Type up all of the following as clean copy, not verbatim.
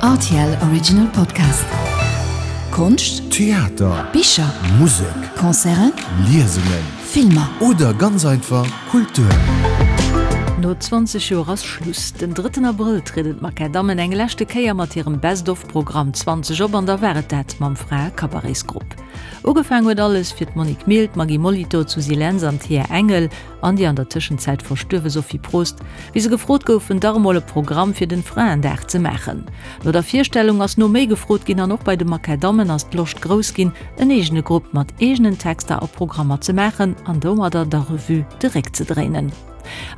Rtl Original Podcast. Konscht, Theater, Bicher, Musek, Concerten, Liesungen, Filmer. Oder ganz einfach Kultur. No 20 Joer ass Schluss. Den drëtten Abrëll trieden d'Makadammen eng leschte Kéier mat hirem Best of Programm 20 op an da war et dat mam Frae-Cabaretsgrupp. Ugefaang huet alles fir d'Monique Mille, d'Maggy Molitor, d'Susy Lentz an d'Thea Engel. an déi an der Tëschenzäit verstuerwe Sophie Prost, wéi se gefrot goufen, dach emol e Programm fir den Fraendag ze maachen. No der Virstellung ass no méi gefrot ginn an och bei de Makadammen ass d'Loscht grouss ginn, en eegene Grupp mat eegenen Texter a Programmer ze maachen an domadder der Revue de Réck ze dréinen.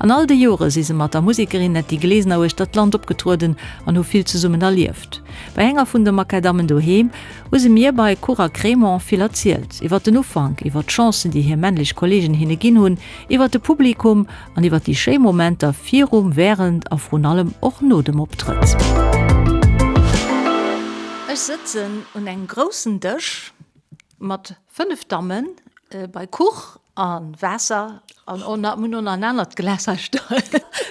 An all de Jore si se mat der Musekerin Netty Glesener uechter d'Land opgetrueden an hu vill zesummen erlieft. Bei enger vun de Makadammen doheem hu se mir bei Kuch a Crémant vill erzielt, iwwer den Ufank, iwwer d'Chancen, déi hir männlech Kolleegen hinne ginn hunn, iwwer de Publikum an iwwer déi schéi Momenter virum, wärend a vrun allem och no dem Optrëtt. Ech sëtzen un engem groussen Dësch mat 5 Dammen bei Kuch A Waasser an och nach, mir hunn och nach en anert Glas hei stoen,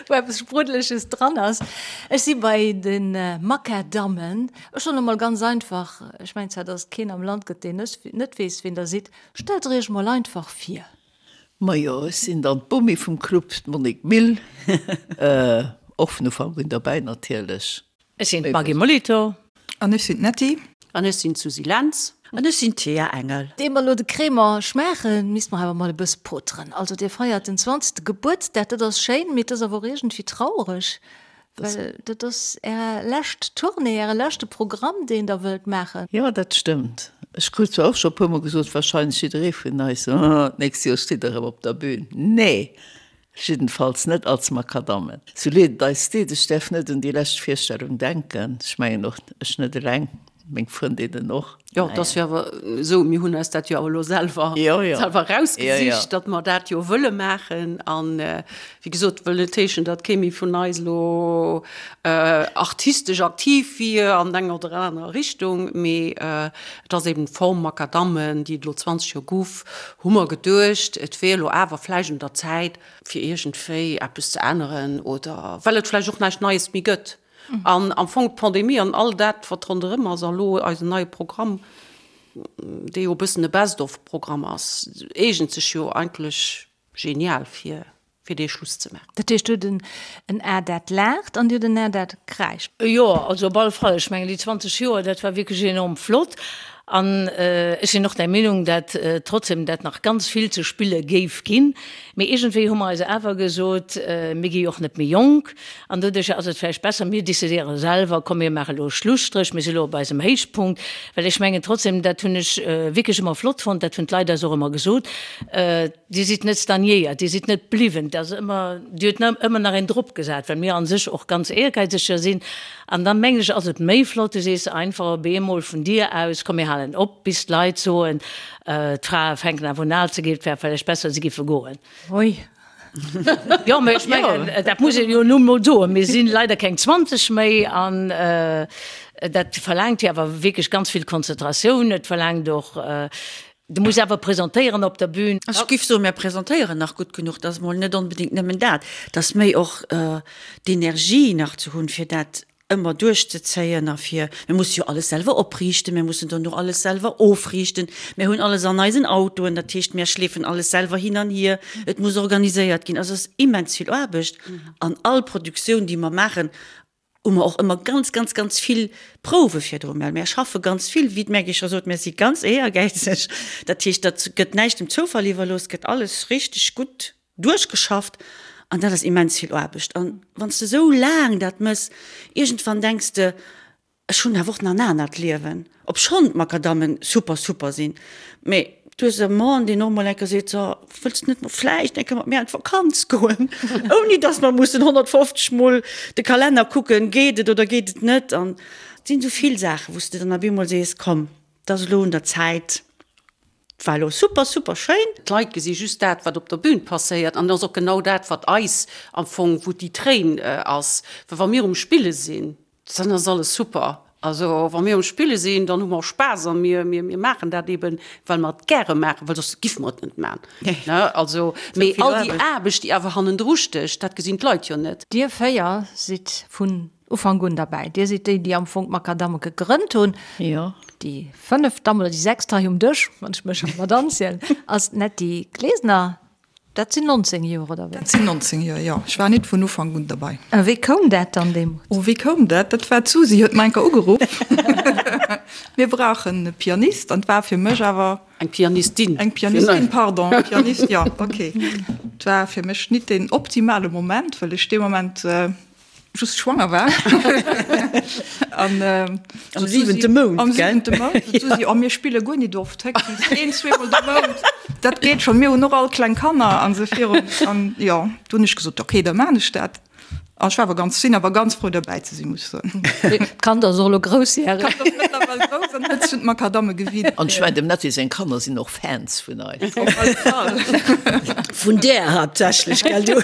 wou eppes Spruddeleges dran ass. Ech si bei de Makadammen. Ech soen emol ganz einfach, ech mengen zwar, dass et keen am Land gëtt, deen net weess, wien Der sidd. Stellt Der Iech mol einfach vir. Majo, ech sinn dann d'Bomi vum Club, d'Monique Mille, och vun Ufank un derbäi natierlech. Ech sinn d'Maggy Molitor. An ech sinn d'Netty. An ech sinn d'Susy Lentz. An ech sinn d'Thea Engel. Ier mer elo de Crémant schmaachen, misste mer awer mol e bësse poteren. Also dir feiert den zwanzegste Gebuertsdag, dat ass schéin, mee et ass awer och iergendwéi trauereg, well dat ass är lescht Tournée, äre leschte Programm, deen der wëllt maachen. Jo, dat stëmmt. Ech krut zwar och scho e puermol gesot, wahrscheinlech jidderee vun eis, Oh, d'nächst Joer steet der erëm op der Bühn. Nee! Jiddenfalls net als Makadammen. Sou leed et eis deet, ech däerf net un déi lescht Virstellung denken. Ech mengen och ech net eleng, meng Frëndinnen och. Jo, et ass jo awer esou, mir hunn eis dat jo awer elo selwer, selwer erausgesicht, datt mer dat jo wëlle maachen. An wéi gesot, wëll net heeschen, datt kee méi vun eis elo artistesch aktiv wier an enger oder anerer Richtung, mee et ass eben d'Form Makadammen, déi et elo 20 Joer guff, hu mer geduecht, et wier elo awer vläicht un der Zäit, fir iergendwéi eppes ze änneren oder well et vläicht och näischt Neies méi gëtt. An am Fong d'Pandemie an all dat, wat ronderëm ass, a lo eisen neie Programm, dee jo e bëssen e Best-of-Programm ass, eegent sech jo eigentlech genial fir fir dee Schluss ze maachen. Dat heescht, dir hutt en A dat laacht an dir hutt en A dat kräischt. Jo, also op alle Fall. Ech mengen, déi 20 Joer, dat war wierklech enorm flott. An ech sinn och der Meenung, dat trotzdem dat nach ganz vill ze spille géif ginn. Mee iergendwéi hu mer eis awer gesot, mir gi jo och net méi jonk an doduercher ass et vläicht besser, mir decidéiere selwer, komm mir maache elo e Schlusstréch, mir si elo op eisem Héichpunkt. Well ech mengen trotzdem, dat hunn ech wierklech ëmmer flott fonnt, dat hunn d'Leit eis och ëmmer gesot, Dir sidd net stagnéiert, Dir sidd net bliwwen, et ass ëmmer, Dir hutt ëmmer nach een drop gesat, well mir a sech och ganz éiergäizeger sinn. An da mengen ech, ass et méi flott, du sees einfach op eemol vun dir aus, komm mir halen op, bis d'Leit soen, d'Frae fänken awer un al ze ginn, et wär vläicht besser, se giffe goen. Ui. Jo, mä ech mengen, dat muss een jo nun emol soen, mir si leider keng 20 méi an dat verlaangt jo awer wierklech ganz vill Konzentratioun, et verlaangt och, Du muss awer presentéieren op der Bühn. Ech giff soen, mär presentéieren nach gutt genuch. Et ass mol net onbedéngt nëmmen dat, et ass méi och d'Energie nach ze hunn, fir dat ëmmer duerchzezéien a fir, mir musse jo alles selwer opriichten, mir mussen dono alles selwer ofriichten, mir hunn alles an eisen Autoen, dat heescht, mär schleefen alles selwer hin an hier, et muss organiséiert ginn. Also et ass immens vill Aarbecht an all Produktioun, déi mer maachen, hu mer och ëmmer ganz, ganz, ganz vill Prouwe virdru. Mä mär schaffe ganz vill, wéi d'Maggy scho sot, mär si ganz éiergäizeg. Dat heescht, dat gëtt näischt dem Zoufall iwwerlooss, et gëtt alles richteg gutt duerchgeschafft an dat ass immens vill Aarbecht. An wann s de esou laang dat mëss, iergendwann denks de, Ech hunn awer och nach en anert Liewen, obschonn d'Makadammen super, super sinn. Mee du hues e Mann, deen och mol eng Kéier seet, So, wëlls de net mol vläicht eng Kéier mat mir an d'Vakanz goen? Ouni dass mer mussen 150 Mol de Kalenner kucken, geet et oder geet et net? An et sinn esou vill Saachen, wou s de dann op eemol sees, Komm, et ass elo un der Zäit, et war elo super, super schéin. D'Leit gesi just dat, wat op der Bühn passéiert. An et ass och genau dat, wat eis am Fong, wou déi Tréin ass. Well wa mir um Spille sinn, Dann ass alles super. Also wa mir um Spille sinn, dann hu mer Spaass a mir, mir, mir maachen dat eben, well mer et gäre maachen, well soss giffe mer et net maachen. Ne? Also, mee all déi Aarbecht, déi awer hannendru stécht, dat gesinn d'Leit jo net. Dir 4 sidd vun. Ufank un derbäi. Dir sidd déi, déi am Fong d'Makadamme gegrënnt hunn. Jo. Déi fënneft Damm oder déi sechst hei um Dësch, wann ech mech mat anzielen, ass d'Netty Glesener. Dat sinn 19 Joer, oder wéi? Dat sinn 19 Joer, jo. Ech war nit vun Ufank un derbei. A wéi koum dat dann deemools? Oh, wéi koum dat? Dat war d'Susi huet mer enker ugeruff, Mir brauchen e Pianist. An 't war fir mech awer. Eng Pianistin. Eng Pianistin, pardon, Pianist, jo, okay. 't war fir mech nit deen optimale Moment, well ech dee Moment just schwanger war. An am siwente Mount, am siwente Mount. D'Susi, oh, mir spille guer nit oft, héchstens een, zweemol de Mount. Dat geet schonn, mir hunn och all kleng Kanner an esou virun. An jo, du hunn ech gesot, okay, da maan ech dat. An ech war awer ganz, sinn awer ganz frou derbäi ze sinn, muss ech soen. D'Kand ass och elo groussjäreg. D'Kand ass mëttlerweil grouss an huet sech un d'Makadamme gewinnt. An ech mengen, dem Netty seng Kanner sinn och Fans vun eis. Op alle Fall. Vun där haaptsächlech, gell du?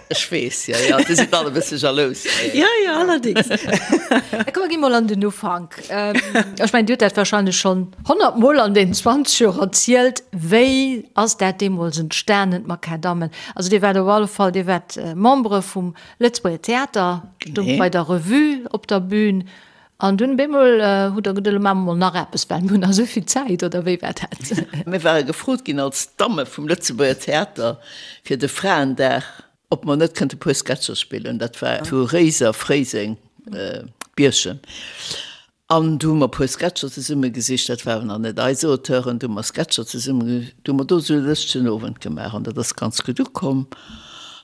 Ech weess, jo, jo, déi sinn all e bësse jalous. Jo, jo, allerdéngs. Da komm, mer gi mol an den Ufank. Ech mengen, Dir hutt dat wahrscheinlech schonn honnertmol an deenen 20 Joer erzielt. Wéi ass dat deemools entstanen, d'Makadammen? Also Dir waart op alle Fall, Dir waart Membere vum Lëtzebuerger Theater, stungt bei der Revue op der Bühn an dunn bemol hutt Der geduet, elo maache mer mol nach eppes, well mir hunn nach esou vill Zäit, oder wéi war dat? Mir ware gefrot ginn als Damme vum Lëtzebuerger Theater fir de Fraendag, ob mer net kënnte puer Sketcher spillen. Dat war zu Réiser, Fréiseng, Bierchem. An du hu mer e puer Sketcher zesumme gesicht, dat waren nach net eis Auteuren, du hu mer Sketcher zesumme, du hu mer do esou e lëschtegen Owend gemaach an dat ass ganz gutt ukomm.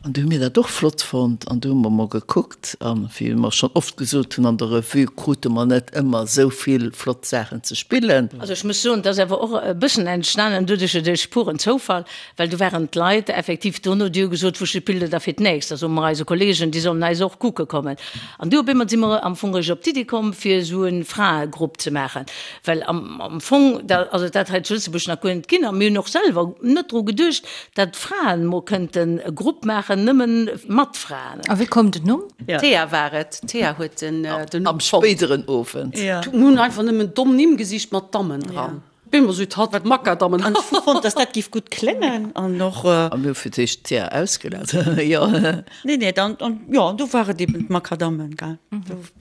An du hu mir dat och flott fonnt an du hu mer mol gekuckt an, wéi mer schonn oft gesot hunn, an der Revue krute mer net ëmmer esou vill flott Saachen ze spillen. Also ech muss soen, et ass awer och e bëssen entstanen doduerch, duerch puren Zoufall, Well do waren d'Leit effektiv dono, déi hu gesot, Wou spillt Der da fir d'nächst? Da soe mer eise Kollegen, déi sollen eis och kucke kommen. An du op eemol si mer am Fong eréischt op d'Iddi komm, fir esou e Fraegrupp ze maachen. Well am Fong, da ass et dat hei zu Lëtzebuerg nach guer net ginn. A mir hunn och selwer net dru geduecht, datt Fraen mol kënnten e Grupp maachen, nëmme mat Fraen. A wéi koum den Numm? D'Thea war et. D'Thea huet den Numm Am fonnt. spéideren Owend. Mir hunn einfach nëmmen domm Nimm gesicht mat Dammen dran. Bin mer süd hatt Makadammen. An ech hu fonnt, dass dat giff gutt kléngen an och. A mir hu fir d'éischt d'Thea ausgelat, jo. Nee, nee, dann, an jo, an do war et eben d'Makadammen, gell.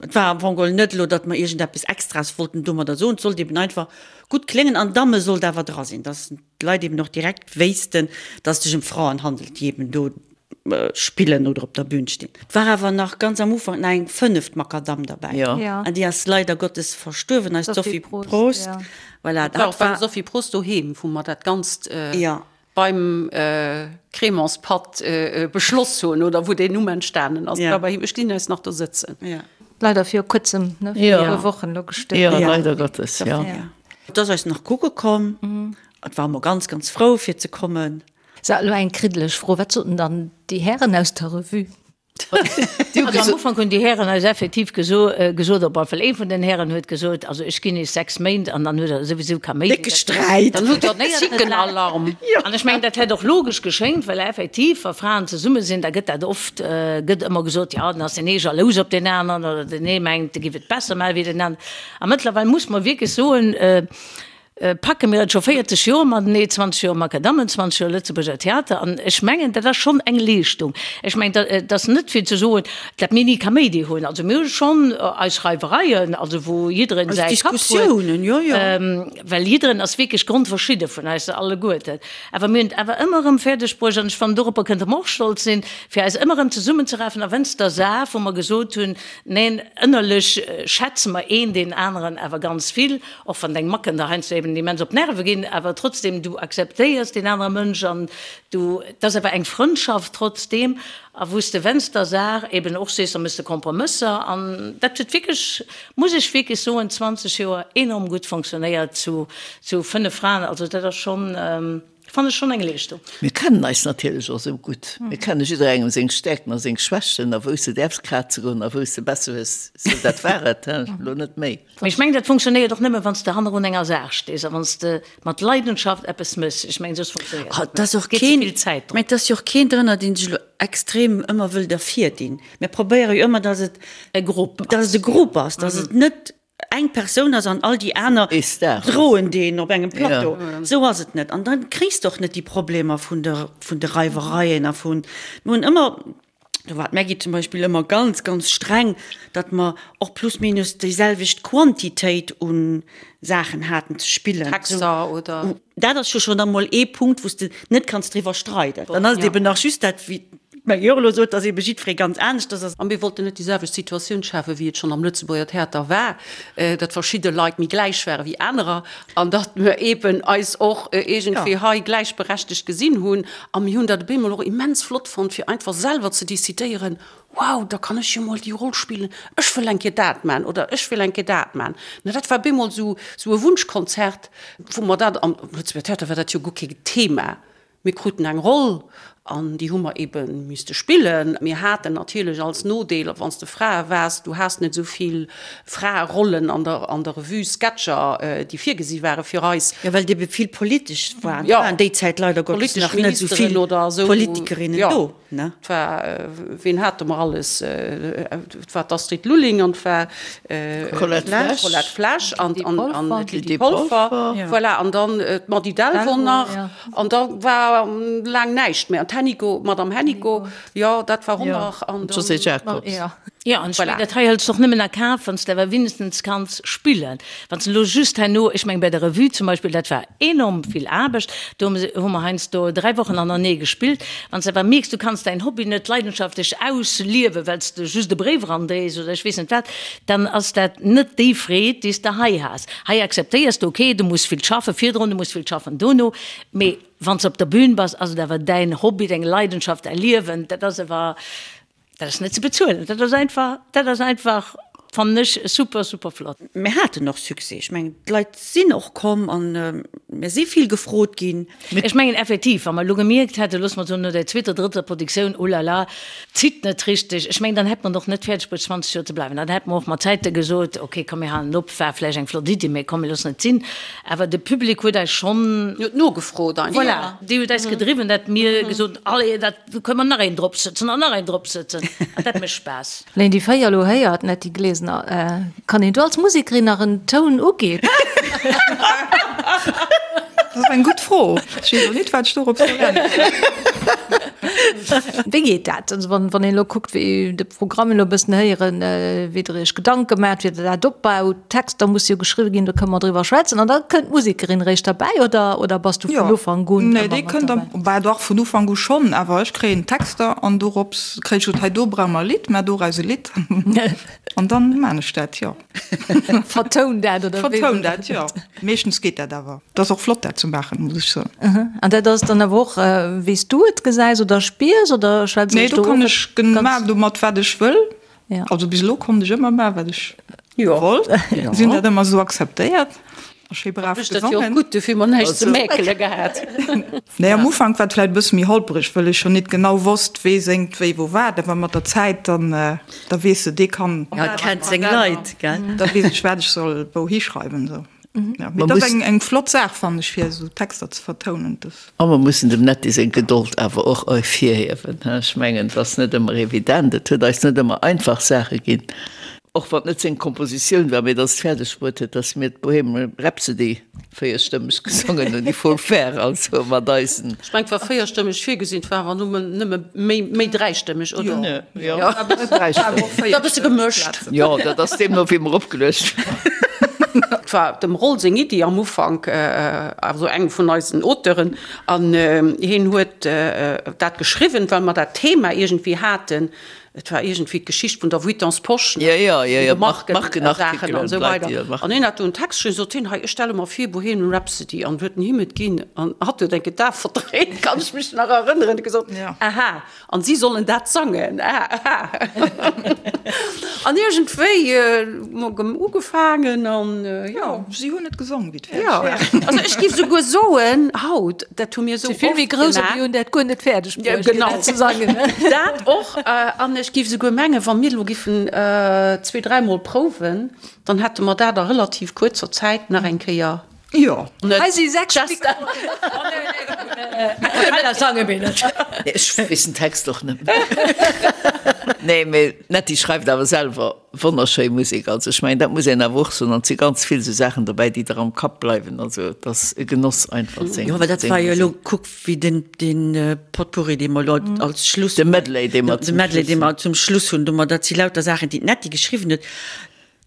Et war am Fong geholl net elo, datt mer iergendeppes Extraes wollten domadder soen, et sollt eben einfach gutt kléngen an Damme sollt awer dra sinn, dass d'Leit eben och direkt wéissten, dass et sech ëm Fraen handelt, déi eben do spillen oder op der Bühn stinn. Et war awer nach ganz am Ufank nach eng fënneft Makadamm derbäi. Jo. An déi ass leider Gottes verstuerwen, eis Sophie Prost. Voilà, Dat war och beim Sophie Prost doheem, wou mer dat Ganzt beim Crémantspatt beschloss hunn oder wou deen Numm entstanen ass. Dat war bei him. Ech gesinn eis nach do sëtzen. Leider viru kuerzem, ne, viru e puer Wochen elo gestuerwen. Jo, leider Gottes, jo. Et ass eis nach kucke komm. Et war mer ganz, ganz frou fir ze kommen. Sou, elo eng kriddeleg Fro, Wat soten dann déi Hären aus der Revue? Also am Ufank hunn déi Hären eis effektiv gesot, op alle Fall ee vun den Hären huet gesot, also ech ginn iech 6 Méint an dann huet der souwisou Kaméidi. Décke Sträit. Dann hutt der Zickenalarm. An ech mengen, dat hätt och logesch geschéngt, well effektiv, wa Fraen zesumme sinn, da gëtt dat oft, gëtt ëmmer gesot, jo, dann ass deen ee jalous op deen aneren oder deen ee mengt, e giff et besser maachen wéi deen aneren. A mëttlerweil muss mer wierklech soen, Packe mir et scho 40 Joer matenee, 20 Joer Makadammen, 20 Joer Lëtzebuerger Theater, an ech mengen, dat ass schonn eng Leeschtung. Ech mengen, dat ass net fir ze soen, datt mir ni Kaméidi hunn. Also mir hu schonn eis Reiwereien, also wou jiddereen säi Kapp huet, well jiddereen ass wierklech grondverschidde vun eis alleguerten. Awer mir hunn et awer ëmmer erëm fäerdeg bruecht, an ech fannen, doropper kënnte mer och stolz sinn, fir eis ëmmer erëm zesummenzerafen, a wéinst der Saach, wou mer gesot hunn, neen, ënnerlech schätze mer een deen aneren awer ganz vill, Och wann deng Macken der heiansdo eben immens op d'Nerve ginn, awer trotzdem, du akzeptéiers deen anere Mënsch an du, et ass awer eng Frëndschaft trotzdem. A wou s de wennst der Saach eben och sees, da méchs de Kompromësser an dat huet wierklech, muss ech wierklech soen, 20 Joer enorm gutt fonctionnéiert zu 5 Fraen. Also dat ass schonn. Fannen ech schon eng Leeschtung. Mir kennen eis natierlech och esou gutt. Mir kenne jidderengem seng Stäerkten a seng Schwächten a wou s de däerfs kraze goen a wou s de besser hues. Sou, dat war et, he, elo net méi. Mee ech mengen, dat funktionéiert och nëmme wann s de hannerun enger Saach stees a wann s de mat Leidenschaft eppes méchs. Ech mengen, soss funktionéiert et net. Et geet ze vill Zäit drop. Mä et ass jo och keen drënner, dee sech elo extrem ëmmer wëll dervirdinn. Mir probéiere jo ëmmer, dass et e Grupp ass, dass et e Grupp ass, dass et net eng Persoun ass an all déi aner droen deen op engem Plateau. Esou ass et net. An da kriss de och net déi Problemer vun de, vun de Reiwereien a vun, mir hunn ëmmer. Do war d'Maggy zum Beispill ëmmer ganz, ganz streng, datt mer och plus minus déiselwecht Quantitéit u Saachen haten ze spillen. Texter oder. Dat ass jo schonn emol ee Punkt, wou s de net kanns driwwer streiden. Dann ass et eben nach just dat, wéi d'Maggy och elo sot, datt ebe jiddweree ganz aneschters ass. A mir wollten net déi selwecht Situatioun schafen, wéi et schonn am Lëtzebuerger Theater war, datt verschidde Leit méi gläich ware wéi anerer an datt mir eben eis och iergendwéi hei gläichberechtegt gesinn hunn. A mir hunn dat op eemol och immens flott fonnt, fir einfach selwer ze decidéieren, Wow, da kann ech jo mol déi Roll spillen, ech wëll eng Kéier dat man oder ech wëll eng Kéier dat man. Na, dat war op eemol esou esou e Wunschkonzert, wou mer dat, am Lëtzebuerger Theater war dat jo guer kee Thema. Mir kruten eng Roll an déi hu mer ebe misste spillen. Mir haten natierlech als Nodeel, wann s de Frae waars, du has net esou vill Fraerollen an der an der Revue, Sketcher, déi virgesi ware fir eis. Jo, well et ebe vill politesch war. Et waren déi Zäit leider Gottes Politesch nach net esou Ministeren vill oder esou. Politikerinnen Jo, do, ne? et war, ween hate mer alles? Et war d'Astrid Lulling an et war D'Colette Flesch. d'Colette Flesch an D'Lydie an an Polfer. d'Lydie Polfer. Voilà, an dann d'Mady Delvaux nach. An da war laang näischt méi. An d'Hennico, d'Madame Hennico, jo, dat war och nach. An dann. D'Josée Jacobs. Jo, an ech mengen, dat hei hëls de och nëmmen a Kaf, wann s de awer wéinegstens kanns spillen. Wann s de elo just herno, ech mengen, bei der Revue zum Beispill, dat war enorm vill Aarbecht, do hu mer heiansdo 3 Wochen hanernee gespillt. Wann s de awer mierks, du kanns däin Hobby net leidenschaftlech ausliewen, well s de just e Bréif erandréis oder ech weess net wat, dann ass dat net déi Freed, déi s de hei has. Hei akzeptéiers de, okay, du muss vill schaffe virdrun, du muss vill schaffen dono, mee wann s de op der Bühn bass, ass et awer däin Hobby, deng Leidenschaft, däi Liewen. Dat ass awer Dat ass net ze bezuelen, dat ass einfach, dat ass einfach, fannen ech, super, super flott. Mir haten och Succès. Ech mengen, d'Leit sinn och komm a mir si vill gefrot ginn. Ech mengen effektiv, wa mer elo gemierkt hätten, loosse mer soen, no der zweeter, drëtter Produktioun, oh la la, zitt net richteg, ech mengen, dann hätt mer et och net fäerdeg bruecht, 20 Joer ze bleiwen. Dann hätte mer och mat Zäite gesot, okay, komm, mir halen op, war vläicht eng flott Iddi, mä komm, mir loossen et sinn. Awer de Public huet eis schonn. Huet nogefrot einfach. Voilà, déi huet eis gedriwwen, datt mir gesot hunn, allez, dat. Do kënne mer nach een drop sëtzen an nach een drop sëtzen. An dat mécht Spaass. Wann een déi 4 elo héiert, Netty Glesener, kann een do als Musekerin nach en Toun uginn? Dat ass eng gutt Fro. Ech weess och nit, wat ech dorop soll äntweren. Wéi geet dat? Also wann een elo kuckt, wéi de Programm elo e bëssen héieren, wéi Der Iech Gedanke maacht, wéi Der dat opbaut, Texter musse jo geschriwwe ginn, do kënne mer driwwer schwätzen. An da kënnt d'Musekerin eréischt derbäi oder, oder bass du vun Ufank un Nee, déi kënnt am, bah dach, vun Ufank u schonn, awer ech kréien d'Texter an dorops kréich ech, hei do brauche mer e Lidd, maach doraus e Lidd an dann maan ech dat, jo. Vertoun dat, oder wéi? Vertoun dat, jo. Meeschtens geet dat awer. Et ass och flott dat ze maachen, muss ech soen. An dat ass dann awer och wéi s du et gesäis oder spiers oder schwätz Nee, ech do do kann och ech ganz. maachen domat wat ech wëll. Ja. Also bis elo konnt ech ëmmer maachen, wat ech wollt. Si hunn dat ëmmer esou akzeptéiert a schéi brav Ech dat jo och gesongen. gutt, dofir hu mer näischt ze mäkele gehat. Nee, am Ufank war et vläicht e bësse méi holpereg, wëll ech jo nit genau wosst, wee séngt wéi wou wat. Awer mat der Zäit, dann da weess de, dee kann. Ja, et kennt seng Leit, gell? Da weess ech, wat ech soll wouhi schreiwen esou. Ja, mee dat ass eng eng flott Saach, fannen ech, fir esou Texter ze vertounen. Dat. A mer mussen dem Netty seng Gedold awer och ervirhiewen. Ech mengen, et ass net ëmmer evident, et huet eis net ëmmer einfach Saache ginn, och wann et net seng Kompositioun war, mee datt et fäerdeg bruet huet, datt mir d'Bohemian Rhapsody véierstëmmeg gesongen hunn, il faut le faire, also mat eisen. Ech mengen, et war véierstëmmeg virgesinn, et war awer nëmmen, nëmme méi, méi dräistëmmeg, oder? Jo, dräistëmmeg. War e bësse gemëscht. Jo, dat ass deemno wéi mer opgeluecht waren. Et war dem Roll seng Iddi am Ufank, also engem vun eisen Auteuren, an hien huet dat geschriwwen, well mer dat Thema iergendwéi haten. Et war iergendwéi d'Geschicht vun der Vuittons Posch, ne, vun de Markensaachen an esou weider. An hien hat do en Text geschriwwen, sot hien, hei, ech stelle mer vir Bohemian Rhapsody, an huet en him et ginn, an hatt huet enke d'Ae verdréint, kann ech mech nach erënneren, huet gesot, aha. An si sollen dat sangen. An iergendwéi hu ugefaangen an jo. Si hunn et gesong, wéi et fäerdeg war. Also ech géif souguer soen, haut, dat hu mir esou oft Si vill méi grouss a mir hunn dat guer net fäerdeg bruecht, fir dat ze sangen. Dat och. An ech géif souguer mengen, wa mir elo giffen zweedräimol prouwen, dann hätte mer dat a relativ kuerzer Zäit nach eng Kéier. Jo. Hei si 6 Mikroen. A cappella sange mir net. Ech weess den Text och net méi. Nee, mee d'Netty schreift awer selwer wonnerschéi Musek. Also ech mengen, dat muss een awer och soen. An et si ganz vill esou Saachen dobäi, déi der am Kapp bleiwen. Also et ass e Genoss einfach seng. Jo, well dat war jo elo, kuck wéi den, den Potpourri, dee mer elo als Schluss. De Medley, dee mer zum Schluss. De Medley, dee mer zum Schluss hunn, domat, dat si lauter Saachen, déi d'Netty geschriwwen huet.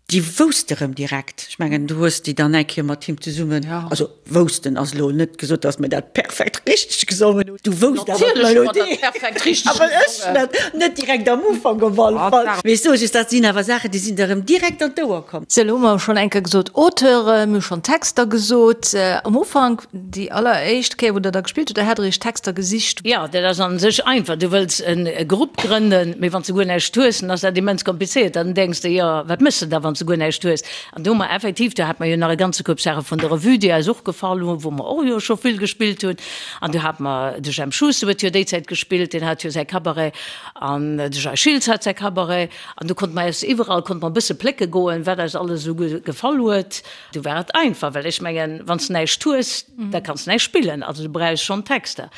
Déi wousst erëm direkt. Ech mengen, du hues déi dann eng Kéier mat him zesummen, also woussten ass elo net gesot, datt mir dat perfekt richteg gesongen hunn. Du wousst awer d'Melodie. Awer ech net, net direkt am Ufank op alle Fall. Mee ech soe just, dat sinn awer Saachen, déi sinn der erëm direkt an d'Ouer komm. Sou, elo hu mer schonn eng Kéier gesot Auteure, mir hu schonn Texter gesot. Am Ufank, déi alleréischt Kéier, wou Der da gespillt hutt, da hat Der Iech Texter gesicht. Jo, dat ass a sech einfach. Du wëlls e Grupp grënnen, mee wann s de guer näischt hues, dann ass dat immens komplizéiert. Dann denks de, jo, wat méchs de da, wann s de guer näischt hues? An do hu mer effektiv, do hate mer jo nach e ganze Koup Saache vun der Revue, déi eis och gefall hunn, wou mer och jo scho vill gespillt hunn. An du hate mer, de Jemp Schuster huet jo déi Zäit gespillt, deen hat jo säi Cabaret, an de Jay Schiltz hat säi Cabaret. An do konnte mer eis iwwerall, konnte mer e bësse plécke goen, wat eis alles esou gefall huet. Du war et einfach, well ech mengen, wann s de näischt hues, da kanns de näischt spillen, also du brauchs schonn Texter.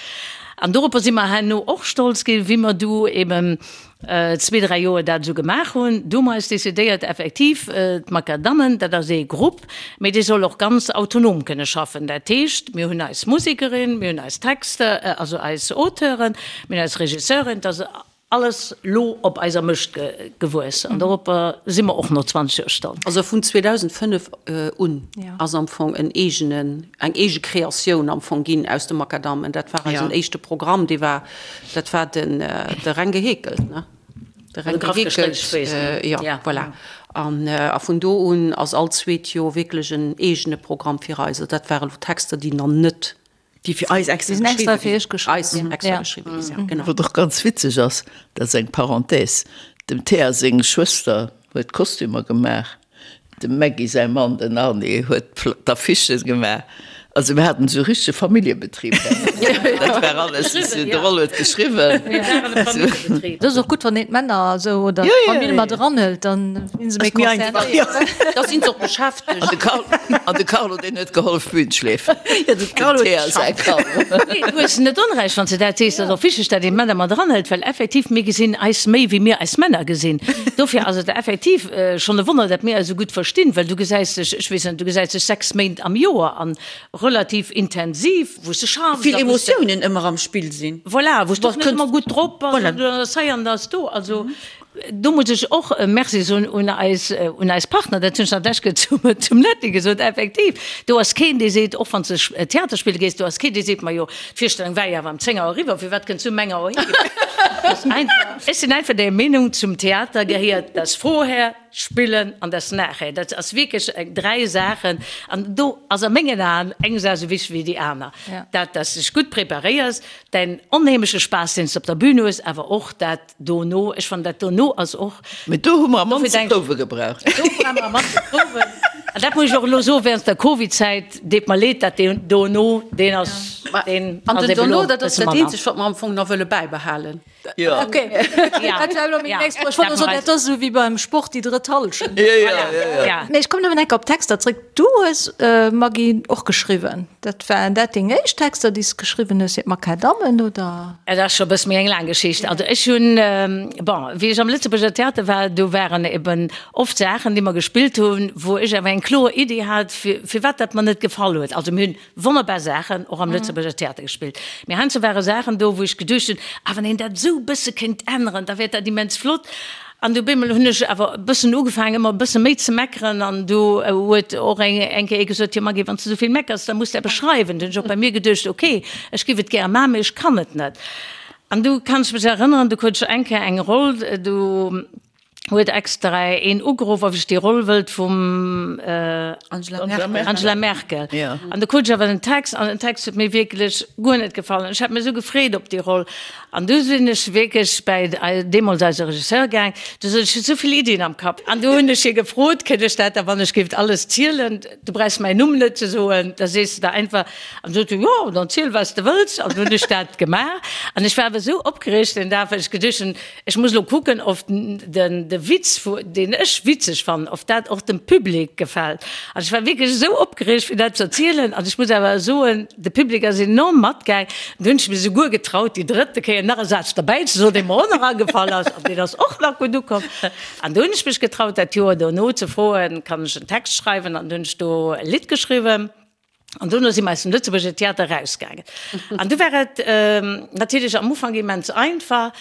An doropper si mer herno och stolz ginn, wéi mer du eben zwee, dräi Joer dat esou gemaach hunn. Du hu mer eis decidéiert, effektiv, d'Makadammen, dat ass ee Grupp, mee dee soll och ganz autonom kënne schaffen. Dat heescht, mir hunn eis Musekerin, mir hunn eis Texter, also eis Auteuren, mir hunn eis Regisseurin, et ass Alles lo op eiser Mëscht gewuess an doropper si mer och no 20 Joer stolz. Also vun 2005 un ass am Fong en eegenen, eng eege Kreatioun am Fong ginn aus de Makadammen. Dat war eisen éischte Programm, dee war, dat war den, de Reng geheekelt, ne? De Reng geheekelt, jo, voilà. An a vun do un ass all zweet Joer wierklech en eegene Programm fir eis. Also dat ware lo Texter, déi nach net Déi fir eis extra geschriwwen ginn. Genau. Wat och ganz witzeg ass, dat ass eng Parenthèse, dem Théa seng Schwëster huet d'Kostümer gemaach, dem Maggy säi Mann, den Arny, huet d'Affichen gemaach. Also mir haten esou e richtege Familljebetrib. Dat war alles, de Roll huet geschriwwen. Dat ass och gutt, wann een d'Männer esou oder d'Famill mat eranhëlt, dann sinn se méi concernéiert. Da sinn se och beschäftegt. An de Carlo, deen huet gehollef Bühn schleefen. Ja, de Carlo huet geschafft. Nee, du hues net Onrecht, wann s de dat sees. Et ass och wichteg, datt een d'Männer mat eranhëlt, well effektiv, mir gesinn eis méi, wéi mir eis Männer gesinn. Dofir ass et effektiv schonn e Wonner, datt mir eis esou gutt verstinn, well du gesäis dech, ech weess net, du gesäis dech 6 Méint am Joer an relativ intensiv, wou s de schaffs. Vill Emotiounen ëmmer am Spill sinn. Voilà, wou s de och net ëmmer gutt drop bass, an du ass hei an ass do. Also Do muss ech och e Merci soen un eis, un eis Partner, dat hunn ech nach d'lescht Kéier zum, zum Netty gesot, effektiv, do ass keen, dee seet, och wann s de Theater spille gees, do ass keen, dee seet, majo, d'Virstellung war jo awer ëm 10 Auer eriwwer, firwat kënns du um eng Auer heem? Ech sinn einfach der Meenung, zum Theater gehéiert das Vorher, d'Spillen an das Nachher. Dat ass wierklech eng, dräi Saachen an do ass a mengen Aen eng Saach esou wichteg wéi déi aner, dat, dass s de dech gutt preparéiers, däin onheemleche Spaass, deen s de op der Bühn hues, awer och dat, Dono, ech fannen dat dono ass och. Mee do hu mer am mannste Prouwe gebraucht. Do hu mer am mannste Prouwen. An dat muss ech och elo soen, während der Covid-Zäit deet mer leed, dat deen dono, deen ass, deen An ass den eben dono, elo dat ass bësse dat manner. eenzegt, wat mer am Fong nach wëlle bäibehalen. Jo. Ok, dat war elo meng nächst Fro. Ech wollt elo soen, dat ass esou wéi beim Sport déi drëtt Hallschent. Jo, jo, jo, jo. Mee ech kommen nëmmen enk op d'Texter zréck. Du hues, Maggy, och geschriwwen. Dat waren dat deng éischt Texter, déi s de geschriwwen hues fir d'Makadammen, oder? Et ass scho e bësse méi eng laang Geschicht. Also ech hunn, bon, wéi ech am Lëtzebuerger Theater war, do waren eben oft Saachen, déi mer gespillt hunn, wou ech awer eng kloer Iddi hat, firwat dat mer net gefall huet. Also mir hunn wonnerbar Saachen och am Lëtzebuerger Theater gespillt, mee heiansdo ware Saachen do, wou ech geduecht hunn, ah wann een dat esou e bësse kéint änneren, da wär dat immens flott. An du bemol hunn ech awer e bëssen ugefaangen, ëmmer e bësse méi ze meckeren. An du huet och eng eng Kéier ee gesot, Jo Maggy, wann s de esou vill meckers, da muss de eppes schreiwen. Du hunn ech och bei mir geduecht, Ok, ech giff et gäre maachen, mee ech kann et net. An du kann ech mech erënneren, du krut ech eng Kéier eng Roll, du huet extra een ugeruff, ob ech déi Roll wëllt vum Angela Merkel. An du krut ech awer den Text, an den Text huet mir wierklech guer net gefall. An ech hat mech esou gefreet op déi Roll. An du sinn ech wierklech bäi deemools eise Regisseur gaang, du sot ech, ech hu sou vill Iddien am Kapp. An du hunn ech hie gefrot, Kënnt ech dat da wann ech géif alles zielen, du brauchs mäin Numm net ze soen, da sees de der einfach. An sot hie, Jo, dann ziel wat s de wëlls. An du hunn ech dat gemaach. An ech war awer esou opgereegt deen Dag, well ech geduecht hunn, Ech muss elo kucken, of den de Witz, deen ech witzeg fannen, of dat och dem Public gefält. An ech war wierklech esou opgereegt, fir dat ze erzielen. An ech muss awer soen, de Public ass enorm matgaang. Du hunn ech mech esouguer getraut, déi drëtte Kéier nach e Saz derbäi ze soen, dee mer och nach agefall ass. An deen ass och nach gutt ukomm. An du hunn ech mech getraut, dat Joer dono ze froen, Kann ech en Text schreiwen? An du hunn ech do e Lidd geschriwwen. An dono si mer aus dem Lëtzebuerger Theater erausgaangen. An du war et natierlech am Ufank immens einfach.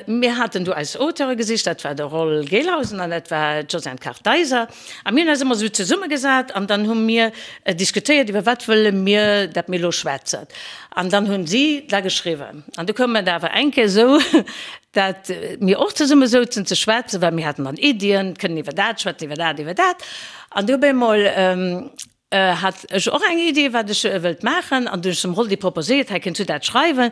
Mir haten du eis Auteure gesicht, dat war de Roll Gelhausen an dat war d'Josiane Kartheiser. A mir hunn eis ëmmer esou zesummegesat an dann hu mir diskutéiert, iwwer wat wëlle mir, dat mir elo schwätzen. An dann hunn si da geschriwwen. An du koum et awer eng Kéier esou, dat mir och zesumme souzen ze schwätzen, well mir haten dann Iddien, kënnen iwwer dat schwätzen, iwwer dat, iwwer dat. An du op eemol Hat ech och eng Idee, wat ech wëllt maachen, an du hunn ech dem Roldi proposéiert, hei kënns du dat schreiwen.